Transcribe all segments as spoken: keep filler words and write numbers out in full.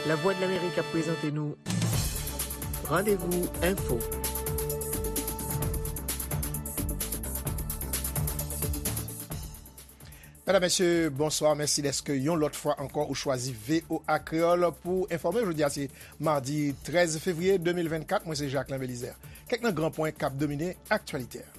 Lavwadlamerik ap prezante nou Randevou Enfo. Medam, mesye, bonswa. Mèsi dèske yon lòt fwa ankò ou chwazi V O A Kreyòl pou enfòme. Jodi a se madi trèz fevriye de mil vennkat. Mwen se Jacquelin Belizaire. Kèk nan gran pwen k ap domine aktyalite a.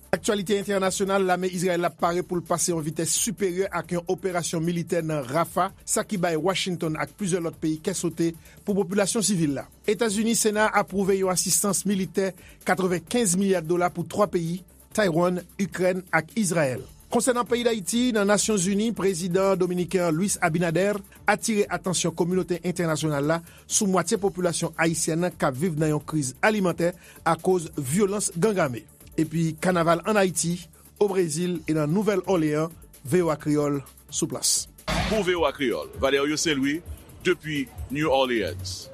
Aktyalite entènasyonal, lame Izrayèl la pare pou l pase yon vitès siperyè ak yon operasyon militè nan Rafah, sa ki bay Washington ak plizyè lòt peyi kè sote pou popilasyon sivil la. Etazini, Sena a apwouve yon asistans militè katrevenkenz milya dola pou twa peyi, Taiwan, Ikrèn ak Izrayèl. Konsènan peyi Dayiti, nan Nasyonzini, prezidan dominiken an Luis Abinader atire atansyon kominote entènasyonal la sou mwatye popilasyon ayisyèn nan k ap viv nan yon kriz alimantè akoz vyolans gang ame. Epi kanaval ann Ayiti, o Brezil e nan Nouvèl Òleyan, V O A Kreyòl sou plas. Pou V O A Kreyòl, Valerio Saint-Louis, depi New Orleans.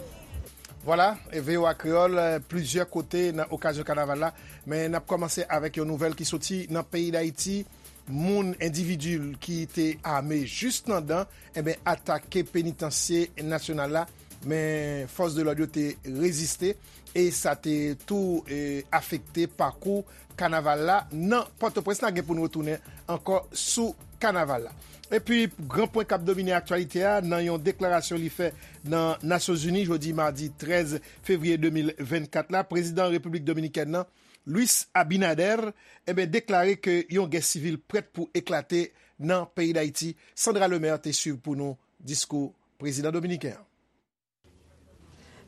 Vwala, e V O A Kreyòl, eh, plizyè kote nan okazyon kanaval la. Men n ap kòmanse avèk yon nouvèl ki soti nan peyi Dayiti. Moun, endividi ki te ame jis nan dan, enben, atake penitansye nasyonal la. Men fòs de lòd yo te reziste e sa te tou, eh, afekte pakou kanaval la nan Pòtoprens. N a gen pou n retounen ankò sou kanaval la. Epi, gran pwen k ap domine aktyalite a, nan yon deklarasyon li fè nan Nasyonzini jodi madi trèz fevriye de mil vennkat la, prezidan Repiblik Dominikèn nan, Luis Abinader, enben, deklare ke yon gè sivil prèt pou eklate nan peyi Dayiti. Sandra Lemaire te swiv pou nou diskou prezidan dominiken an.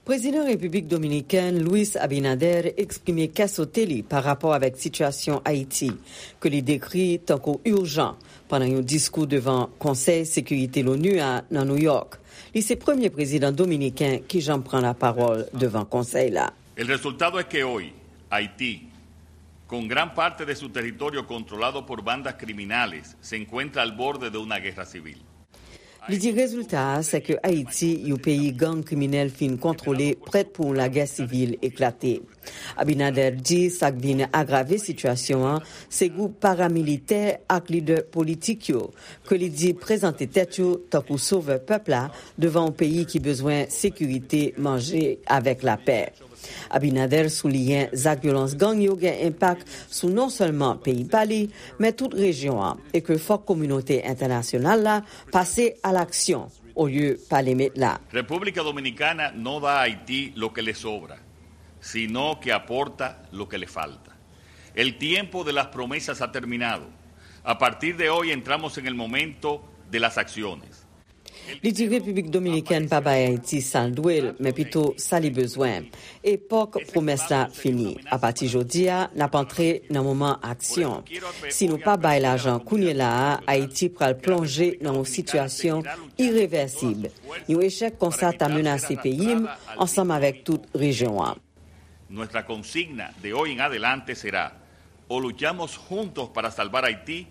Prezidan Repiblik Dominikèn Luis Abinader eksprime kè sote li pa rapò avèk sitiyasyon Ayiti, ke li dekri tankou ijan, pandan yon diskou devan Konsèy Sekirite Lonu a nan Nouyòk. Li se premye prezidan dominiken ki janm pran lapawòl devan konsèy la. El resultado es que hoy Haití, con gran parte de su territorio controlado por bandas criminales, se encuentra al borde de una guerra civil. Li di rezilta a, se ke Ayiti, yon peyi gang kriminèl fin kontwole, prèt pou yon lagè sivil eklate. Abinader di sa k vin agrave sitiyasyon an, se gwoup paramilitè ak lidè politik yo, ke li di prezante tèt yo tankou sovè pèp la devan yon peyi ki bezwen sekirite, manje avèk lapè. Abinader souliyen zak vyolans gang yo gen enpak sou non sèlman peyi pa li, men tout rejyon an, e ke fòk kominote entènasyonal la pase a laksyon olye pale met la. República Dominicana no da a Haití lo que le sobra, sino que aporta lo que le falta. El tiempo de las promesas ha terminado. A partir de hoy entramos en el momento de las acciones. Li di Repiblik Dominikèn pa bay Ayiti sa l dwe l, men pito sa li bezwen. Epòk pwomès la fini. Apati jodi a, n ap antre nan moman aksyon. Si nou pa bay lajan kounye la a, Ayiti pral plonje nan yon sitiyasyon irevèsib. Yon echèk konsa ta menase peyi m ansanm avèk tout rejyon an. Nuestra consigna de hoy en adelante será: o luchamos juntos para salvar Haití,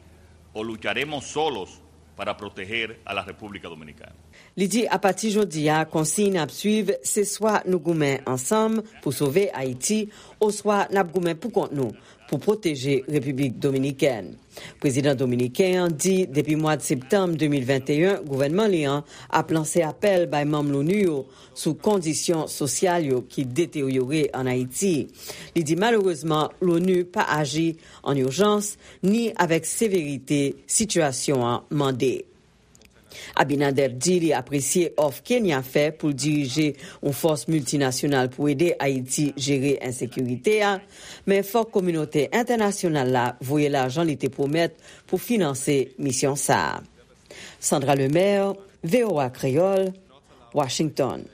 o lucharemos solos para proteger a la República Dominicana. Li di apati jodi a, konsiy n ap swiv, se swa nou goumen ansanm pou sove Ayiti, oswa n ap goumen pou kont nou pou pwoteje Repiblik Dominikèn. Prezidan dominiken an di depi mwa septanm de mil venteyen, gouvènman li an ap lanse apèl bay manm Lonu yo sou kondisyon sosyal yo ki deteryore ann Ayiti. Li di malerezman, Lonu pa aji an ijans ni avèk severite sitiyasyon an mande. Abinader di li apresye òf Kenya fè pou l dirije yon fòs miltinasyonal pou ede Ayiti jere ensekirite a, men fòk kominote entènasyonal la voye lajan li te pwomèt pou finanse misyon sa a. Sandra Lemaire, V O A Kreyòl, Washington.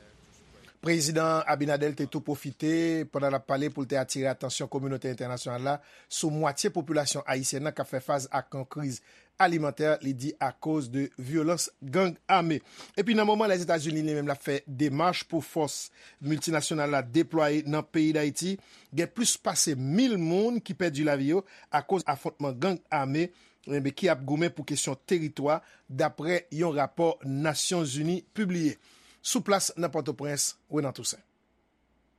Prezidan Abinader te tou pwofite, pandan l ap pale, pou l te atire atansyon kominote entènasyonal la sou mwatye popilasyon ayisyèn nan k ap fè fas ak yon kriz alimantè, li di, akoz de vyolans gang ame. Epi nan moman Lèzetazini li menm l ap fè demach pou fòs miltinasyonal la deplwaye nan peyi Dayiti, gen plis pase mil moun ki pèdi lavi yo akoz afwontman gang ame, enben, ki ap goumen pou kesyon teritwa, dapre yon rapò Nasyonzini pibliye. Sou plas nan Pòtoprens, Renan Toussaint.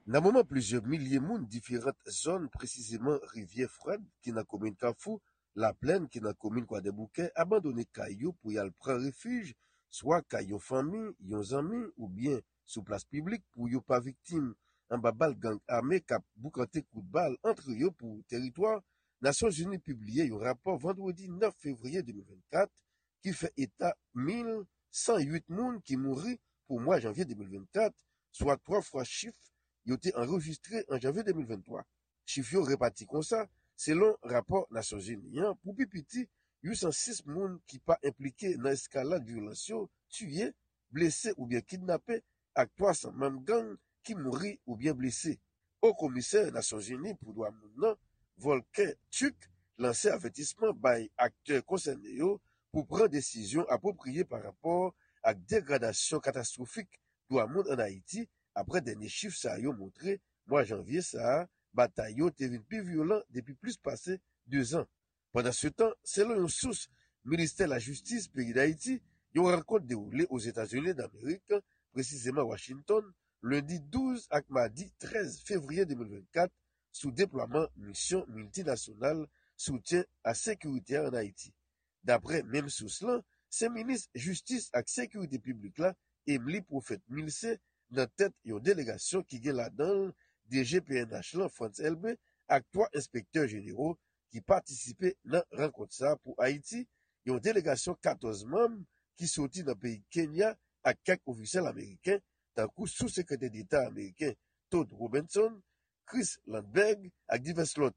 Nan moman plizyè milye moun diferant zòn, presizeman Rivyè Frèd ki nan komin Kafou, Laplèn ki nan komin Kwadèboukè, abandone kay yo pou y al pran refij, swa kay yon fanmi, yon zanmi oubyen sou plas piblik pou yo pa viktim anba bal gang ame k ap boukante kout bal antre yo pou teritwa. Nasyonzini pibliye yon rapò vandredi nèf fevriye de mil vennkat ki fè eta mil san uit moun ki mouri pou mwa janvye de mil vennkat, swa twa fwa chif yo te anrejistre an janvye de mil venntwa. Chif yo repati konsa, selon rapò Nasyonzini an, pou pi piti, uit san sis moun ki pa enplike nan eskalad vyolans yo tiye, blese oubyen kidnape, ak twa san manm gang ki mouri oubyen blese. Wo Komisè Nasyonzini pou Dwa Moun nan, Volker Turk, lanse avètisman bay aktè konsène yo pou pran desizyon apwopriye pa rapò ak degradasyon katastwofik dwa moun ann Ayiti, apre dènye chif sa yo montre mwa janvye sa a, batay yo te vin pi vyolan depi plis pase dezan. Pandansetan, selon yon sous Ministè Lajistis peyi Dayiti, yon rankont dewoule Ozetazini Damerik, presizeman Washington, lendi douz ak madi trèz fevriye de mil vennkat, sou deplwaman misyon miltinasyonal soutyen a sekirite a ann Ayiti. Daprè menm sous lan, se minis jistis ak sekirite piblik la, Emely Prophète Milcé, nan tèt yon delegasyon ki gen ladan l D G P N H lan, Frantz Elbé, ak twa enspektè jenero ki patisipe nan rankont sa a pou Ayiti, yon delegasyon katòz manm ki soti nan peyi Kenya ak kèk ofisyèl ameriken, tankou Sou-Sekretè Deta ameriken Todd Robinson, Chris Lundberg ak divès lòt.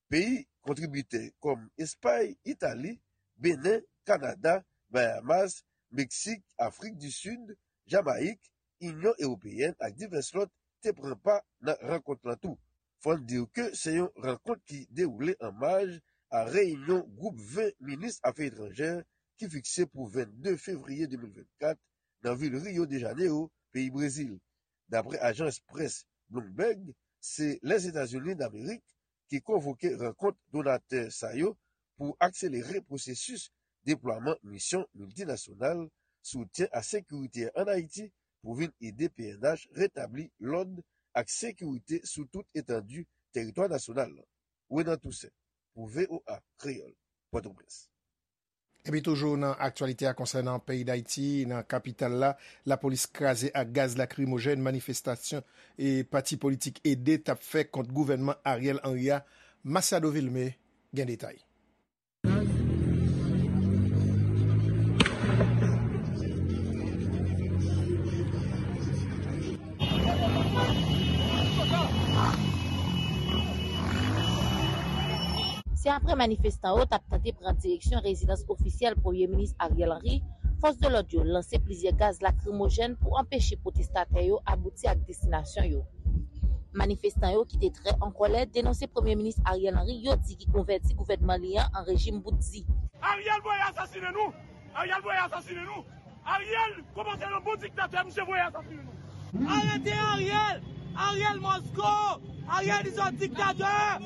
Peyi kontribitè kòm Espay, Itali, Benen, Kanada, Bayamas, Meksik, Afrik di Sid, Jamayik, Inyon Ewopeyèn ak divès lòt te pran pa nan rankont lan tou. Fò n di w ke se yon rankont ki dewoule an maj a reyinyon gwoup ven minis afè etranjè ki fikse pou vennde fevriye de mil vennkat nan vil Rio de Janeiro, peyi Brezil. Daprè ajans près Bloomberg, se Lèzetazini Damerik ki konvoke rankont donatè sa yo pou akselere pwosesis deplwaman misyon miltinasyonal soutyen a sekirite ann Ayiti pou vin ede P N H retabli lòd ak sekirite sou tout etandi teritwa nasyonal lan. Renan Toussaint, pou V O A Kreyòl, Pòtoprens. Epi toujou nan aktyalite a konsènan peyi Dayiti, nan kapital la, lapolis kraze ak gaz lakrimojèn manifestasyon e pati politik ede t ap fè kont gouvènman Ariel Henry a. Masiado Vilmé gen detay. Se apre manifestan yo t ap tante pran direksyon rezidans ofisyèl Premye Minis Ariel Henry, fòs de lòd yo lanse plizyè gaz lakrimojèn pou anpeche pwotestatè yo abouti ak destinasyon yo. Manifestan yo ki te trè an kòlè denonse Premye Minis Ariel Henry, yo di ki konvèti gouvènman li an an rejim bout di. Ariel voye asasinen nou! Ariel voye asasinen nou! Ariel kòmanse yon bon diktatè, misye voye asasinen nou. Arete Ariel! Ariel must go! Ariel is a dictator!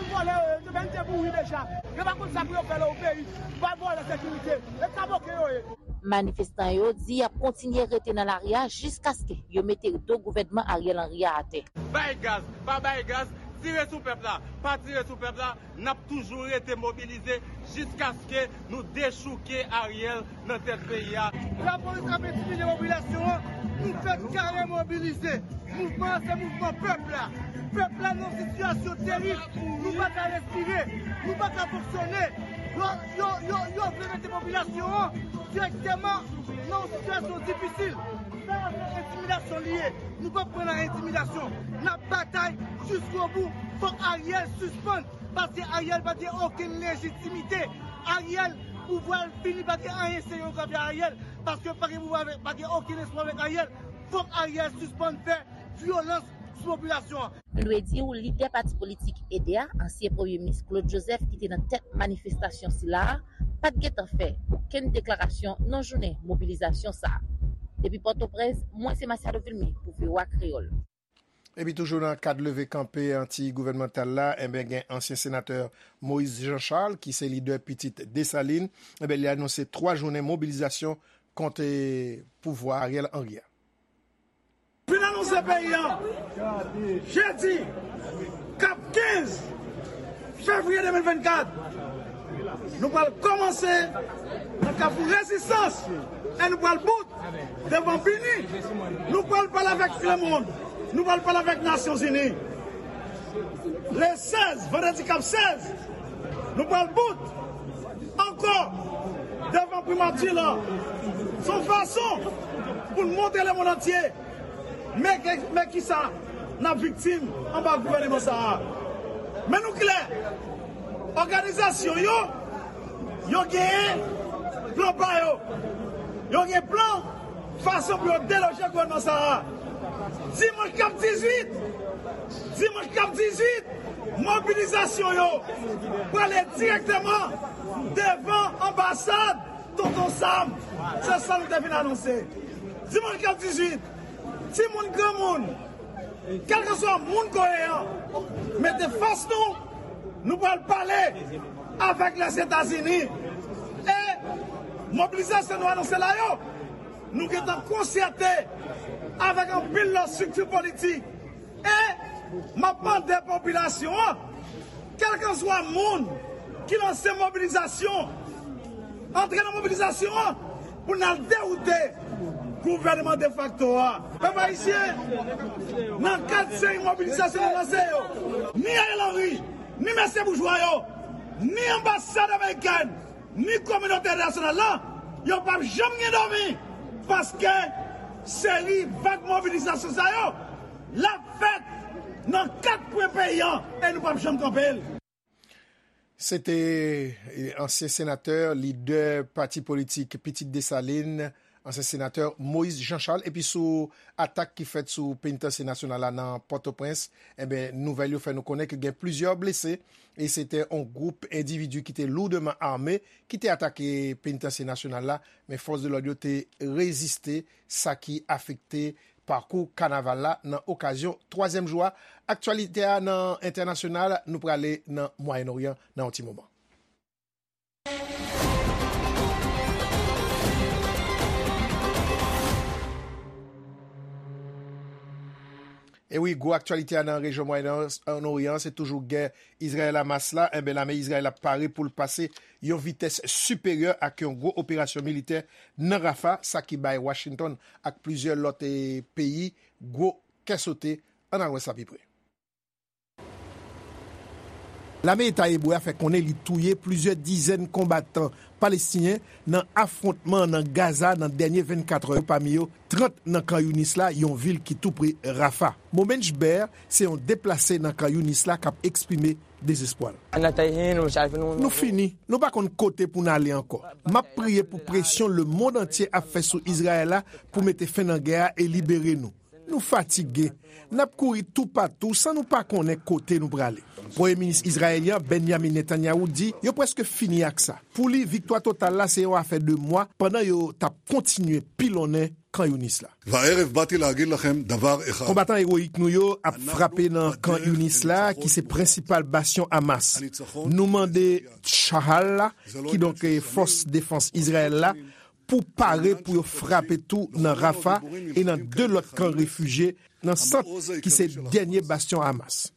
Vòlè yo ye, yo vin te mouri deja. Yo pa konn sa pou yo fè lè o peyi. Vòlè sekirite. E kaboke yo ye. Manifestan yo di y ap kontinye rete nan lari a jiskaske yo mete do gouvènman Ariel Henry a atè. Bay gaz, pa bay gaz, tire sou pèp la, pa tire sou pèp la, n ap toujou rete mobilize jiskaske nou dechouke Ariel nan tèt peyi a. Lapolis ap entimide popilasyon an, nou fèk kare mobilize. Mouvman an se mouvman pèp la. Pèp la nan sitiyasyon terib, nou pa ka respire, nou pa ka fonksyone. Yo, yo, yo, yo vle mete popilasyon an dirèkteman nan yon sitiyasyon difisil. Sa a se entimidasyon li ye. Nou p ap pran nan entimidasyon. N ap batay jiskobou. Fòk Ariel sispann. Paske Ariel pa gen okenn lejitimite. Ariel, pouvwa l fini, pa gen anyen serye yo ka fè Ariel. Paske pa gen pouvwa avèk, pa gen okenn espwa avèk Ariel. Fòk Ariel sispann fè vyolans sou popilasyon an. Nou dwe di w, lidè pati politik ede a, ansyen Premye Minis Claude Joseph, ki te nan tèt manifestasyon sila a, pa t gentan fè okenn deklarasyon nan jounen mobilizasyon sa a. Depi Pòtoprens, mwen se Masiado Vilmé pou V O A Kreyòl. Epi toujou nan kad leve kanpe anti-gouvènmantal la, enben gen ansyen senatè Moïse Jean Charles ki se lidè pitit Desalin, enben li anonse twa jounen mobilizasyon kont, eh, pouvwa Ariel Henry a. Fin anonse peyi an, jedi, k ap kenz fevriye de mil vennkat, Nou pral kòmanse nan Kafou Rezistans e nou pral bout devan Bini. Nou pral pale avèk lemonn. Nou pral pale avèk Nasyonzini. Le sèz, vandredi k ap sèz, nou pral bout ankò devan Primati la. Se yon fason pou n montre lemonn antye men, men kisa n ap viktim anba gouvèneman sa a. Men nou klè, òganizasyon yo, yo genyen plan pa yo. Yo gen plan fason pou yo deloje gouvènman sa a. Dimanch k ap dizuit, dimanch k ap dizuit, mobilizasyon yo prale dirèkteman devan anbasad Tonton Sam. Se sa nou te vin anonse. Dimanch k ap dizuit, timoun, granmoun, kèlkeswa moun koye an, mete fòs nou, nou pral pale avèk Lèzetazini. E mobilizasyon nou anonse la yo, nou gentan konsète avèk anpil lòt estrikti politik. E m ap mande popilasyon an, kèlkeswa moun ki lanse mobilizasyon, antre nan mobilizasyon an pou n al dewoute gouvènman defakto a. Pèp ayisyen, nan kad seri mobilizasyon nou lanse yo, ni Ariel Henry, ni mesye boujwa yo, ni anbasad amerikèn, ni kominote entènasyonal la, yo p ap janm gen dòmi, paske seri vag mobilizasyon sa yo, l ap fèt nan kat kwen peyi an, e nou p ap janm kanpe l. Se te, eh, ansyen senatè, lidè pati politik Pitit Desalin, ansyen senatè Moïse Jean Charles, epi sou atak ki fèt sou Penitansye Nasyonal la nan Pòtoprens, enben, nouvèl yo fè nou konnen ke gen plizyè blese, e se te yon gwoup endividi ki te lourdman ame ki te atake Penitansye Nasyonal la, men fòs de lòd yo te reziste, sa ki afekte pakou kanaval la nan okazyon twazyèm jou a. Aktyalite a nan entènasyonal, nou prale nan Mwayen Oryan nan yon ti moman. E wi, gwo aktyalite a nan rejyon Mwayen Oryan, se toujou gè Izrayèl-Hamas la. Enben, lame Izrayèl ap pare pou l pase yon vitès siperyè ak yon gwo operasyon militè nan Rafa, sa ki bay Washington ak plizyè lòt, eh, peyi gwo kè sote. Ann al wè sa pi pre. Lame Eta Ebre a fè konnen li touye plizyè dizèn konbatan palestinyen nan afwontman nan Gaza nan dènye vennkat è yo, pami yo trant nan Kan Younis la, yon vil ki tou pre Rafa. Momenj Ber se yon deplase nan Kan Younis la k ap eksprime dezespwa l. Nou fini, nou pa konn kote pou n ale ankò. M ap priye pou presyon lemonn antye ap fè sou Izrayèl la pou mete fen nan gè a e libere nou. Nou fatige. N ap kouri toupatou san nou pa konnen kote nou prale. Premye minis izrayelyen Benjamin Netanyahu di yo prèske fini ak sa. Pou li, viktwa total la se yon afè de mwa pandan yo t ap kontinye pilonnen Kan Younis la. והערב באתי להגיד לכם דבר אחד. Konbatan ewoyik nou yo ap frape nan Kan Younis la, ki se prensipal bastyon Hamas. Nou mande Chahal la, kidonk, eh, fòs defans Izrayèl la, pou pare pou yo frape tou nan Rafa e nan de lòt kan refijye nan sant ki se dènye bastyon Hamas.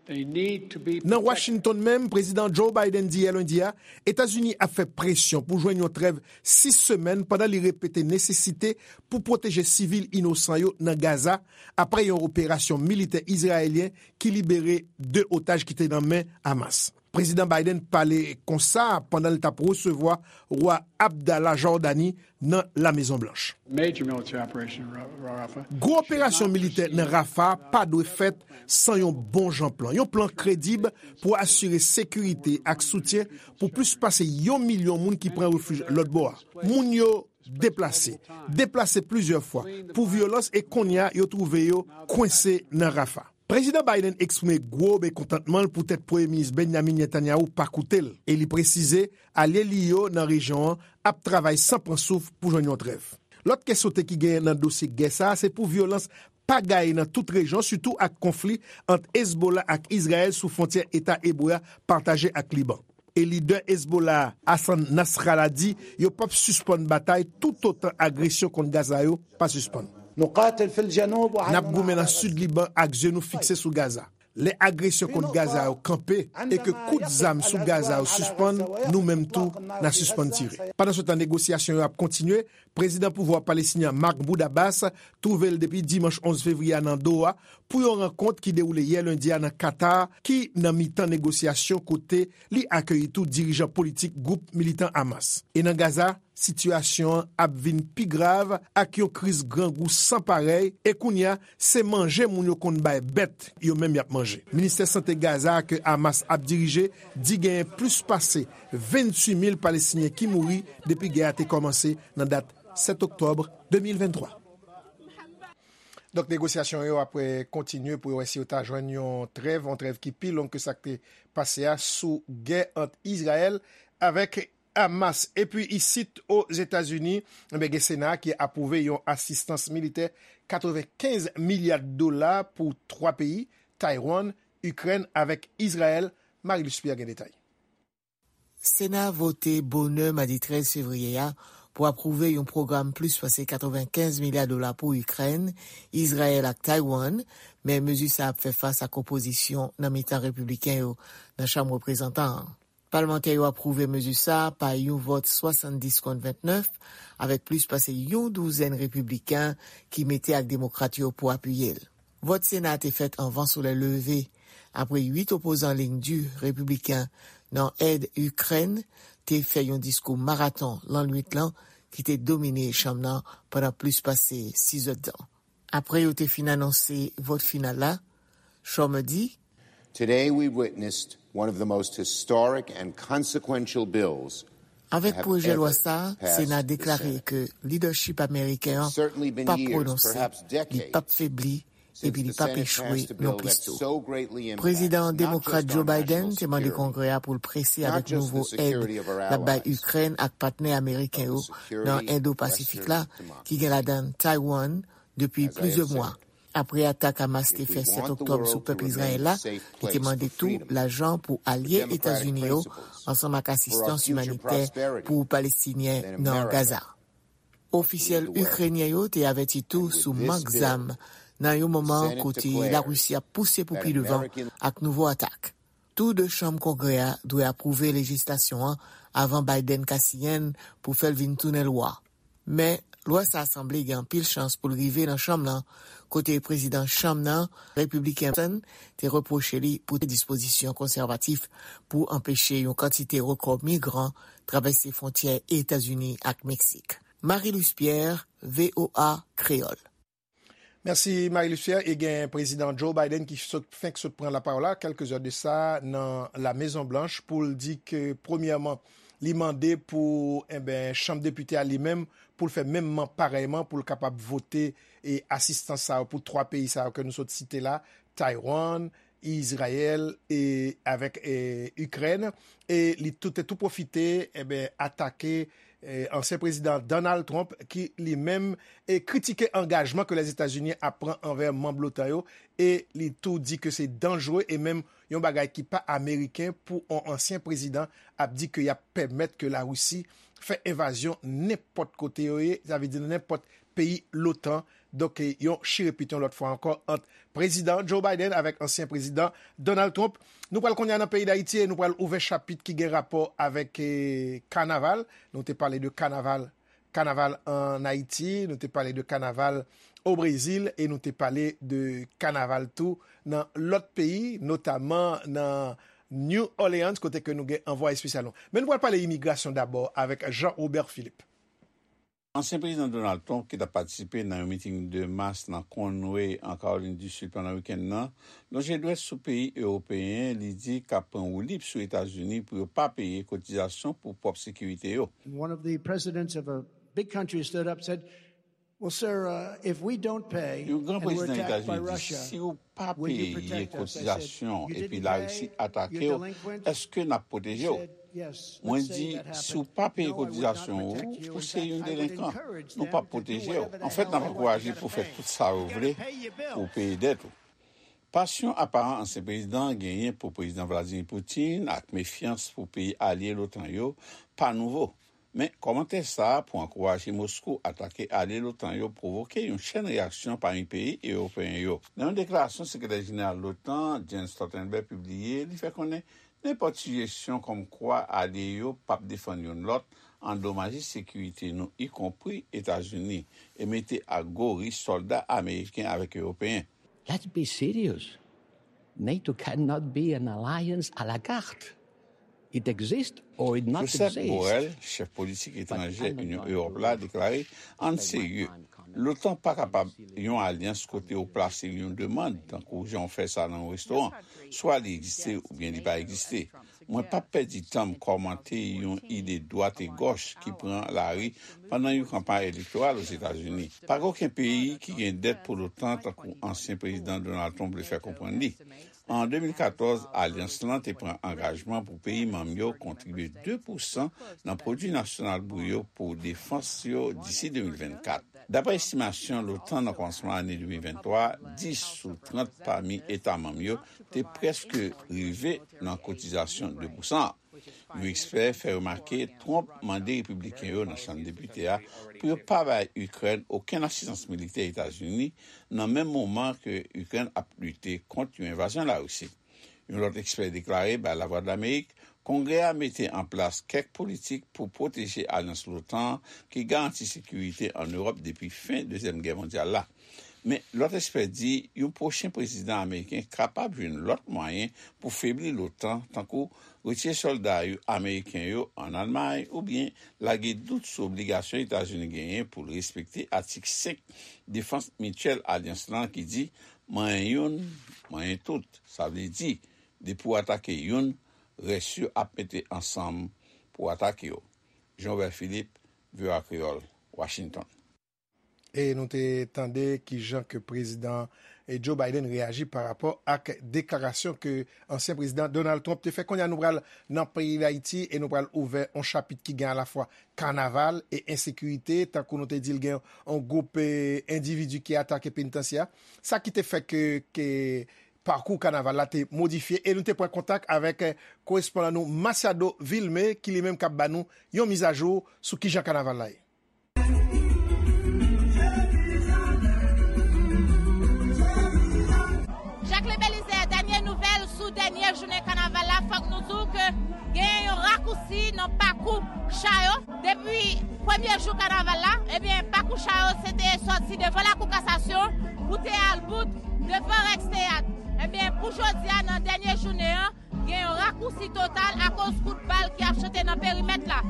Nan Washington menm, Prezidan Joe Biden di yè lendi a, Etazini ap fè presyon pou jwenn yon trèv sis semèn pandan li repete nesesite pou pwoteje sivil inosan yo nan Gaza apre yon operasyon militè izrayelyen ki libere de otaj ki te nan men Hamas. Prezidan Biden pale konsa pandan l t ap resevwa Wa Abdallah Jòdani nan La Mezon Blanch. Major military operation in Ra-, Rafah. Gwo operasyon militè nan Rafa pa dwe fèt san yon bon jan plan. Yon plan kredib pou asire sekirite ak soutyen pou plis pase yon milyon moun ki pran refij lòt bò a. Moun yo deplase, deplase plizyè fwa pou vyolans e kounye a yo twouve yo kwense nan Rafa. Prezidan Biden eksprime gwo mekontantman l poutèt Premye Minis Benjamin Netanyahu pa koute l, e li presize alye li yo nan rejyon an ap travay san pran souf pou jwenn yon trèv. Lòt kè sote ki genyen nan dosye gè sa a se pou vyolans pa gaye nan tout rejyon, sitou ak konfli ant Hezbollah ak Izrayèl sou fwontyè Eta Ebre a pataje ak Liban. E lidè Hezbollah a, Hassan Nasrallah, di yo p ap sispann batay toutotan agresyon kont Gaza yo pa sispann. نقاتل في الجنوب وعلى N ap goumen nan sid Liban ak zye nou fikse sou Gaza. Lè agresyon kont Gaza yo kanpe e ke kout zam sou Gaza yo sispann, nou menm tou, n a sispann tire. Pandansetan, negosyasyon yo ap kontinye. Prezidan pouvwa palestinyen an, Mahmoud Abbas, twouve l depi dimanch onz fevriye a nan Doha pou yon rankont ki dewoule yè lendi a nan Katar, ki nan mitan negosyasyon, kote li akeyi tou dirijan politik gwoup militan Hamas. E nan Gaza, sitiyasyon an ap vin pi grav ak yon kriz grangou san parèy, e kounye a, se manje moun yo konn bay bèt yo menm y ap manje. Ministè Sante Gaza a ke Hamas ap dirije di genyen plis pase venntuit mil Palestinyen ki mouri depi gè a te kòmanse nan dat sèt oktòb de mil venntwa. Donk, negosyasyon yo ap, eh, kontinye pou yo wè si yo ta jwenn yon trèv, yon trèv ki pi long ke sa k te pase a sou gè ant Izrayèl avèk Hamas. Epi isit Ozetazini, enben, gen Sena ki apwouve yon asistans militè katrevenkenz milya dola pou twa peyi, Taiwan, Ikrèn avèk Izrayèl. Marie Luce Pierre gen detay. Sena vote bonè madi trèz fevriye a pou apwouve yon pwogram plis pase katrevenkenz milya dola pou Ikrèn, Izrayèl ak Taiwan, men mezi sa ap fè fas ak opozisyon nan mitan repibliken yo nan Chanm Reprezantan an. Palmantè yo apwouve mezi sa a pa yon vòt swasanndis kont ventnèf, avèk plis pase yon douzèn repibliken ki mete ak demokrat yo pou apiye l. Vòt Sena a te fèt anvan solèy leve, apre uit opozan liy di repibliken nan èd Ikrèn te fè yon diskou maraton lannwit lan ki te domine chanm nan pandan plis pase sis èdtan. Apre yo te fin anonse vòt final la, Schumer di, Today we witnessed one of the most historic and consequential bills. Avèk pwojè lwa sa a, Sena deklare ke lidèchip ameriken an p ap pwononse, li p ap febli, epi li p ap echwe non plis tou. Prezidan demokrat Joe Biden te mande Kongrè a pou l prese avèk nouvo èd l ap bay Ikrèn ak patnè ameriken yo nan Endo-Pasifik la, ki gen ladan l Taiwan, depi plizyè mwa. Apre atak Hamas te fè sèt oktòb sou pèp Izrayèl la, li te mande tou lajan pou alye Etazini yo, ansanm ak asistans imanitè pou Palestinyen nan Gaza. Ofisyèl ikrenyen yo te avèti tou sou mank zam nan yon moman kote Larisi ap pouse pou pi devan ak nouvo atak. Tou de chanm Kongrè a dwe apwouve lejislasyon an avan Biden ka siyen l pou fè l vin tounen lwa. Men, lwa sa a sanble gen anpil chans pou l rive nan chanm nan, kote prezidan chanm nan, repibliken Johnson, te repwoche li pou te dispozisyon konsèvatif pou anpeche yon kantite rekò migran travèse fwontyè Etazini ak Meksik. Marie Luce Pierre, V O A Kreyòl. Mèsi, Marie Luce Pierre. E gen prezidan Joe Biden ki sot, fenk sot pran lapawòl la, kèlke zè de sa, nan La Mezon Blanch, pou l di ke, premyèman, li mande pou, enben, Chanm Depite a li menm, pou l fè menmman, parèyman, pou l kapab vote e asistans sa yo pou twa peyi sa yo ke nou sot site la, Taiwan, Izrayèl e avèk, e, Ikrèn. E li tou, te tou pwofite, enben, atake, e, ansyen prezidan Donald Trump, ki li menm, e, kritike angajman ke Lèzetazini ap pran anvè manm l'OTAN yo. E li tou di ke se danjre e menm yon bagay ki pa ameriken pou yon ansyen prezidan ap di ke y ap pèmèt ke Larisi fè envazyon nenpòt kote yo ye, sa vle di nan nenpòt peyi l'OTAN. Donk, e, yon chirepit yon lòt fwa ankò ant prezidan Joe Biden avèk ansyen prezidan Donald Trump. Nou pral kounye a nan peyi Dayiti e nou pral ouvè chapit ki gen rapò avèk, e, kanaval. Nou te pale de kanaval, kanaval ann Ayiti, nou te pale de kanaval o Brezil e nou te pale de kanaval tou nan lòt peyi, notaman nan New Orleans, kote ke nou gen anvwaye espesyal nou. Men nou pral pale imigrasyon dabò avèk Jean Robert Philippe. Ansyen prezidan Donald Trump, ki t ap patisipe nan yon miting de mas nan Conway, an Kawolin di Sid, pandan wikenn nan, lonje dwèt sou peyi ewopeyen, li di k ap pran woulib sou Etazini pou yo pa peye kotizasyon pou pwòp sekirite yo. And one of the presidents of a big country stood up, said, "Well, sir, uh, if we don't pay and we're attacked by Russia, will you protect us?" Yon gran prezidan Etazini di, "Si w pa peye kotizasyon epi Larisi atake w, èske n ap pwoteje w?" Mwen di, "Si w pa peye kotizasyon ou, ou se yon delenkan. Nou p ap pwoteje w. Anfèt, n ap ankouraje pou w fè tout sa w vle pou w peye dèt ou." Pasyon aparan ansyen prezidan an genyen pou Prezidan Vladimir Putin ak mefyans pou peyi alye l'OTAN yo pa nouvo. Men, kòmantè sa a pou ankouraje Moskou atake alye l'OTAN yo pwovoke yon chèn reyaksyon pami peyi ewopeyen yo. Nan yon deklarasyon sekretè jeneral l'OTAN, Jens Stoltenberg, pibliye, li fè konnen nenpòt sijesyon kòmkwa alye yo p ap defann youn lòt andomaje sekirite nou, ikonpri Etazini, e mete a gwo risk sòlda ameriken avèk ewopeyen. Let's be serious. NATO cannot be an alliance à la carte. It exists or it not Josep exist. Borrell, chèf politik etranjè Unyon Ewòp la, deklare, ann serye, l'OTAN pa kapab yon alyans kote w plase yon demann, tankou jan w fè sa nan yon restoran. Swa li egziste oubyen li pa egziste. Mwen p ap pèdi tan m kòmante yon ide dwat e gòch ki pran lari pandan yon kanpay elektoral Ozetazini. Pa gen okenn peyi ki gen dèt pou l'OTAN, tankou ansyen prezidan Donald Trump vle fè konprann li. An de mil katòz, alyans lan te pran angajman pou peyi manm yo kontribye de pousan nan pwodui nasyonal bri yo pou defans yo disi de mil vennkat. Dapre estimasyon l'OTAN nan kòmansman ane de mil venntwa, dis sou trant pami eta manm yo te prèske rive nan kotizasyon de pousan an. Yon ekspè fè remake Trump mande repibliken yo nan Chanm Depite a pou yo pa bay Ikrèn okenn asistans militè Etazini, nan menm moman ke Ikrèn ap lite kont yon envazyon Larisi. Yon lòt ekspè deklare bay Lavwadlamerik, Kongrè a mete an plas kèk politik pou pwoteje alyans l'OTAN an ki garanti sekirite ann Ewòp depi fen Dezyèm Gè mondyal la. Men, lòt ekspè di yon pwochen prezidan ameriken kapab jwenn lòt mwayen pou febli l'OTAN, tankou retire sòlda yo, ameriken yo ann Almay, oubyen lage dout sou obligasyon Etazini genyen pou l respekte atik senk defans mityèl alyans lan ki di, manyen youn, manyen tout. Sa vle di, depi w atake youn, rès yo ap mete ansanm pou atake w. Jean Robert Philippe, V O A Kreyòl, Washington. E nou te tande kijan ke prezidan, e, Joe Biden reyaji pa rapò ak deklarasyon ke ansyen prezidan Donald Trump te fè. Kounye a nou pral nan peyi Dayiti e nou pral ouvè yon chapit ki gen alafwa kanaval e ensekirite. Tankou nou te di l, gen yon gwoup, e, endividi ki atake penitansye a. Sa ki te fè ke, ke pakou kanaval la te modifye e nou te pran kontak avèk, e, korespondan nou Masiado Vilmé ki li menm k ap ba nou yon mizajou sou kijan kanaval la ye. Jacquelin Belizaire, dènye nouvèl sou dènye jounen kanaval la, fòk nou di w ke gen yon rakousi nan pakou cha yo. Depi premye jou kanaval la, ebyen, pakou cha yo se te sòti devan lakou kasasyon pou te al bout devan Rex Teyat. Ebyen, pou jodi a, nan dènye jounen an, gen yon rakousi total akoz kout bal ki ap chante nan perimèt la.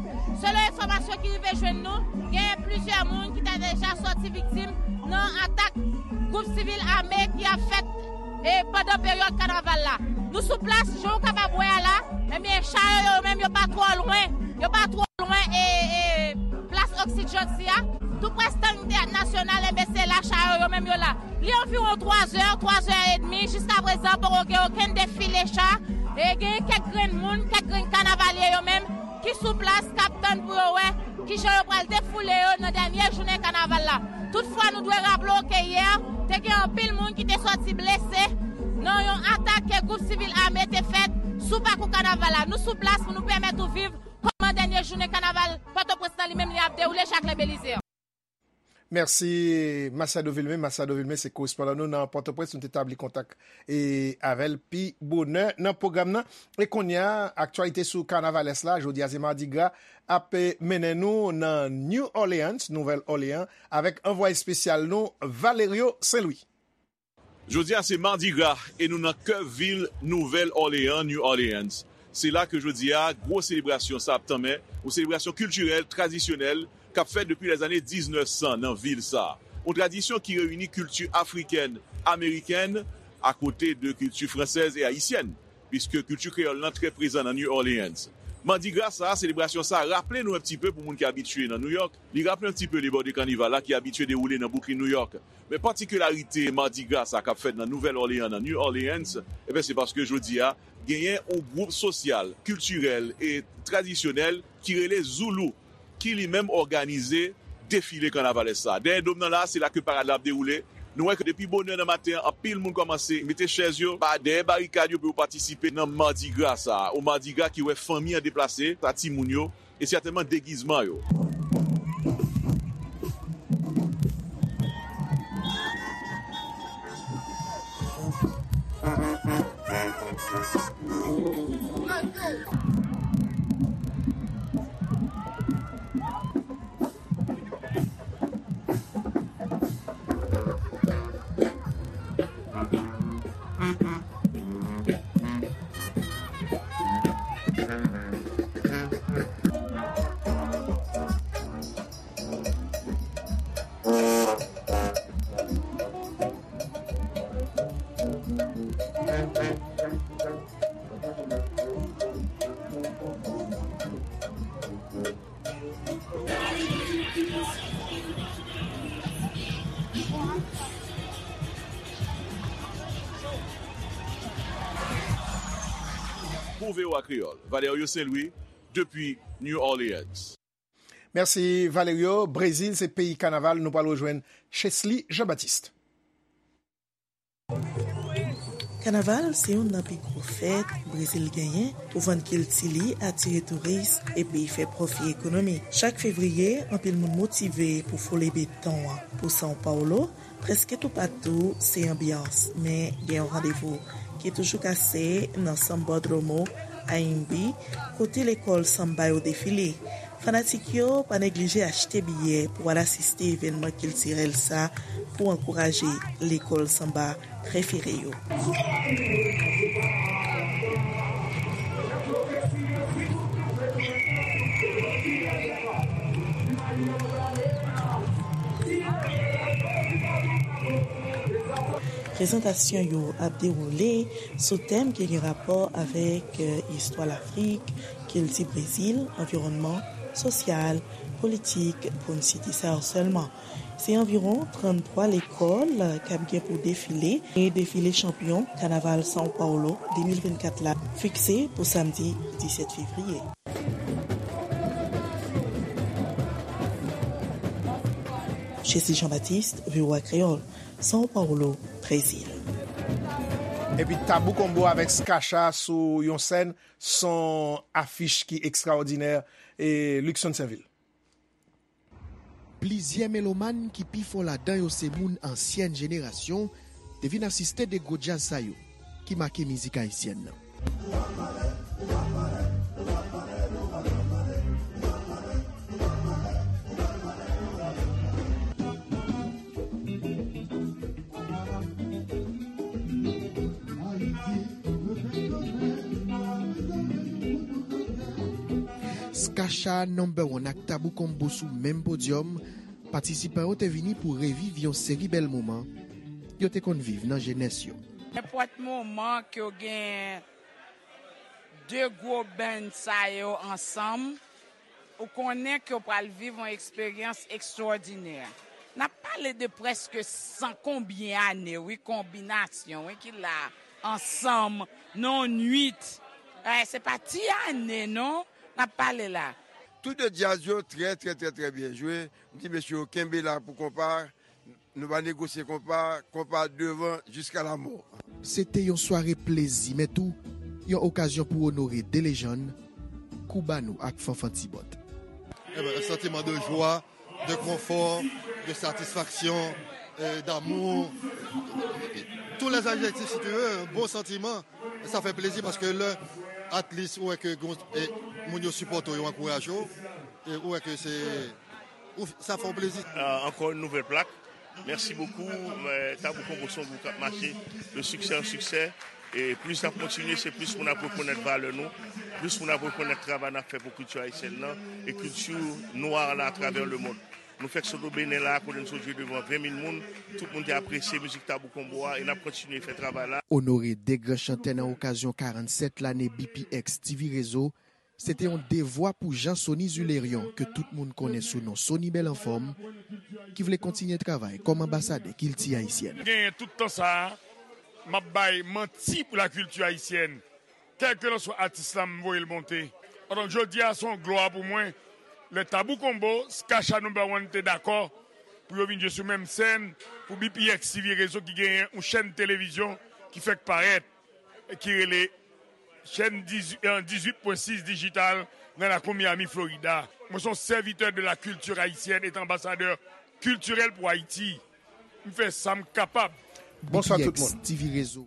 Selon enfòmasyon ki rive jwenn nou, gen plizyè moun ki ta deja sòti viktim nan atak gwoup sivil ame ki ap fèt, e, pandan peryòd kanaval la. Nou sou plas, jan w kapab wè a la, ebyen, cha yo, yo menm, yo pa twò lwen, yo pa twò lwen, e, e, plas Oksid Janti a. Tou prè stand Teyat Nasyonal, ebyen, se la cha yo, yo menm, yo la. Li anviwon twa zè, twa zè edmi, jiska prezan poko gen okenn defile cha, e gen kèk grenn moun, kèk grenn kanavalye yo menm ki sou plas k ap tann pou yo wè kijan yo pral defoule yo nan dènye jounen kanaval la. Toutfwa, nou dwe raple w ke yè, te gen anpil moun ki te sòti blese nan yon atak ke gwoup sivil ame te fèt sou pakou kanaval la. Nou sou plas pou nou pèmèt ou viv kòman dènye jounen kanaval Pòtoprens lan li menm li ap dewoule, Jacquelin Belizaire. Mèsi, Masiado Vilmé. Masiado Vilmé se korespondan nou nan Pòtoprens. Nou te tabli kontak, e, avè l pi bonè nan pwogram nan. E kounye a, aktyalite sou kanavalès la. Jodi a, se Mardi Gras ap, e, mennen nou nan New Orleans, Nouvèl Òleyan, avèk anvwaye espesyal nou, Valerio Saint-Louis. Jodi a se Mardi Gras e nou nan kè vil Nouvèl Òleyan, New Orleans. Se la ke jodi a gwo selebrasyon sa ap tanmen, yon selebrasyon kiltirèl, tradisyonèl, k ap fèt depi lèzane diznèf san nan vil sa. Yon tradisyon ki reyini kilti afrikèn, amerikèn, akote de kilti fransèz e ayisyèn, piske kilti kreyòl lan trè prezan nan New Orleans. Mardi Gras sa, selebrasyon sa, raple nou un petit peu pou moun ki abitye nan New York, li raple un petit peu lebòde kanival la ki abitye dewoule nan Brooklyn, New York. Men patikilarite Mardi Gras sa k ap fèt nan Nouvèl Òleyan, nan New Orleans, ebyen, se paske jodi a, genyen yon gwoup sosyal, kiltirèl e tradisyonèl ki rele Zoulou, ki li menm òganize defile kanavalès sa. Dèyè dòm nan la, se la ke parad la ap dewoule. Nou wè ke depi bonè nan maten an, anpil moun kòmanse mete chèz yo ba-, dèyè barikad yo pou yo patisipe nan Mardi Gras sa. Yon Mardi Gras ki wè fanmi an deplase, sa timoun yo, E sètènman degizman yo. Pou V O A Kreyòl, Valerio Saint-Louis, depi New Orleans. Mèsi, Valerio. Brezil se peyi kanaval. Nou pral rejwenn Chesly Jean-Baptiste. Kanaval se youn nan pi gwo fèt Brezil genyen pou vann kilti li, atire touris, epi fè pwofi ekonomik. Chak fevriye, anpil moun motive pou foule beton an. Pou São Paulo, prèske toupatou se anbyans, men gen yon randevou ki toujou kase nan Sambódromo Anhembi, kote lekòl sanba yo defile. Fanatik yo pa neglije achte biyè pou al asiste evènman kiltirèl sa pou ankouraje lekòl sanba prefere yo. Prezantasyon yo ap dewoule sou tèm ki gen rapò avèk, eh, istwa Lafrik, kilti Brezil, anviwònman, sosyal, politik, pou n site sa yo sèlman. Se anviwon tranntwa lekòl k ap gen pou defile, e defile chanpyon kanaval São Paulo de mil vennkat la fikse pou samdi disèt fevriye. Chesly Jean-Baptiste, V O A Kreyòl, São Paulo, Brezil. Epi Tabou Combo avèk Skacha sou yon sèn, son afich ki ekstraòdinè, e Luckson Sainvil. Plizyè melomàn ki pi fò ladan yo se moun ansyèn jenerasyon te vin asiste de gwo djaz sa yo ki make mizik ayisyèn nan. Skacha Number One ak Tabou Combo sou menm podyòm, patisipan yo te vini pou reviv yon seri bèl moman yo te konn viv nan jenès yo. Nenpòt moman ke w gen de gwo band sa yo ansanm, ou konnen ke w pral viv yon eksperyans ekstwòdinè. N ap pale de prèske san konbyen ane, wi, konbinasyon, wi, ki la ansanm nan yon nwit. Eh, se pa ti ane, non, n ap pale la. Tout de djaz yo trè, trè, trè, trè byen jwe. M di mesye yo kenbe la pou konpa. Nou va negosye konpa, konpa devan jiska lamò. Se te yon sware plezi, men tou yon okazyon pou onore de lejann, Koubano ak Fanfan Tibòt. Eh ben, un sentiment de joie, de confort, de satisfaction, euh, d'amour, tous les adjectifs si tu veux, un bon sentiment. Sa fè plezi paske lè at least ou wè ke gon, e, moun yo sipòte w, yo ankouraje w, e ou wè ke se, ou, sa fè w plezi. Euh, encore une nouvelle plaque. Merci beaucoup. Euh, Tabou Combo se yon gwoup k ap mache de succès en succès. E plis n ap kontinye, se plis moun ap rekonèt valè nou, plis moun ap rekonèt travay n ap fè pou kilti ayisyèn nan e kilti nwa la atravè lemonn. Nou fèk sot o Benin la, kote n sot jwe devan ven mil moun. Tout moun te apresye mizik Tabou Combo a e n ap kontinye fè travay la. Onore de gran chantè nan okazyon karannsèt lane B P X T V Rezo, se te yon devwa pou Jean Sony Zulerion, ke tout moun konnen sou non Sony Bèl Anfòm, ki vle kontinye travay kòm anbasadè kilti ayisyèn. Genyen tout tan sa a, m ap bay manti pou lakilti ayisyèn. Kèlkelanswa atis la, m voye l monte. Donk, jodi a, se yon glwa pou mwen. Lè Tabou Combo, Skacha Number One te dakò pou yo vin jwe sou menm sèn pou B P X T V Rezo ki genyen yon chèn televizyon ki fèk parèt, ki rele chèn dizuit, euh, dizuit pwen sis dijital nan lakou Miami, Florida. Mwen se yon sèvitè de la kilti ayisyèn et anbasadè kiltirèl pou Ayiti. M fè sa m kapab. Bonswa tout moun. T V Rezo.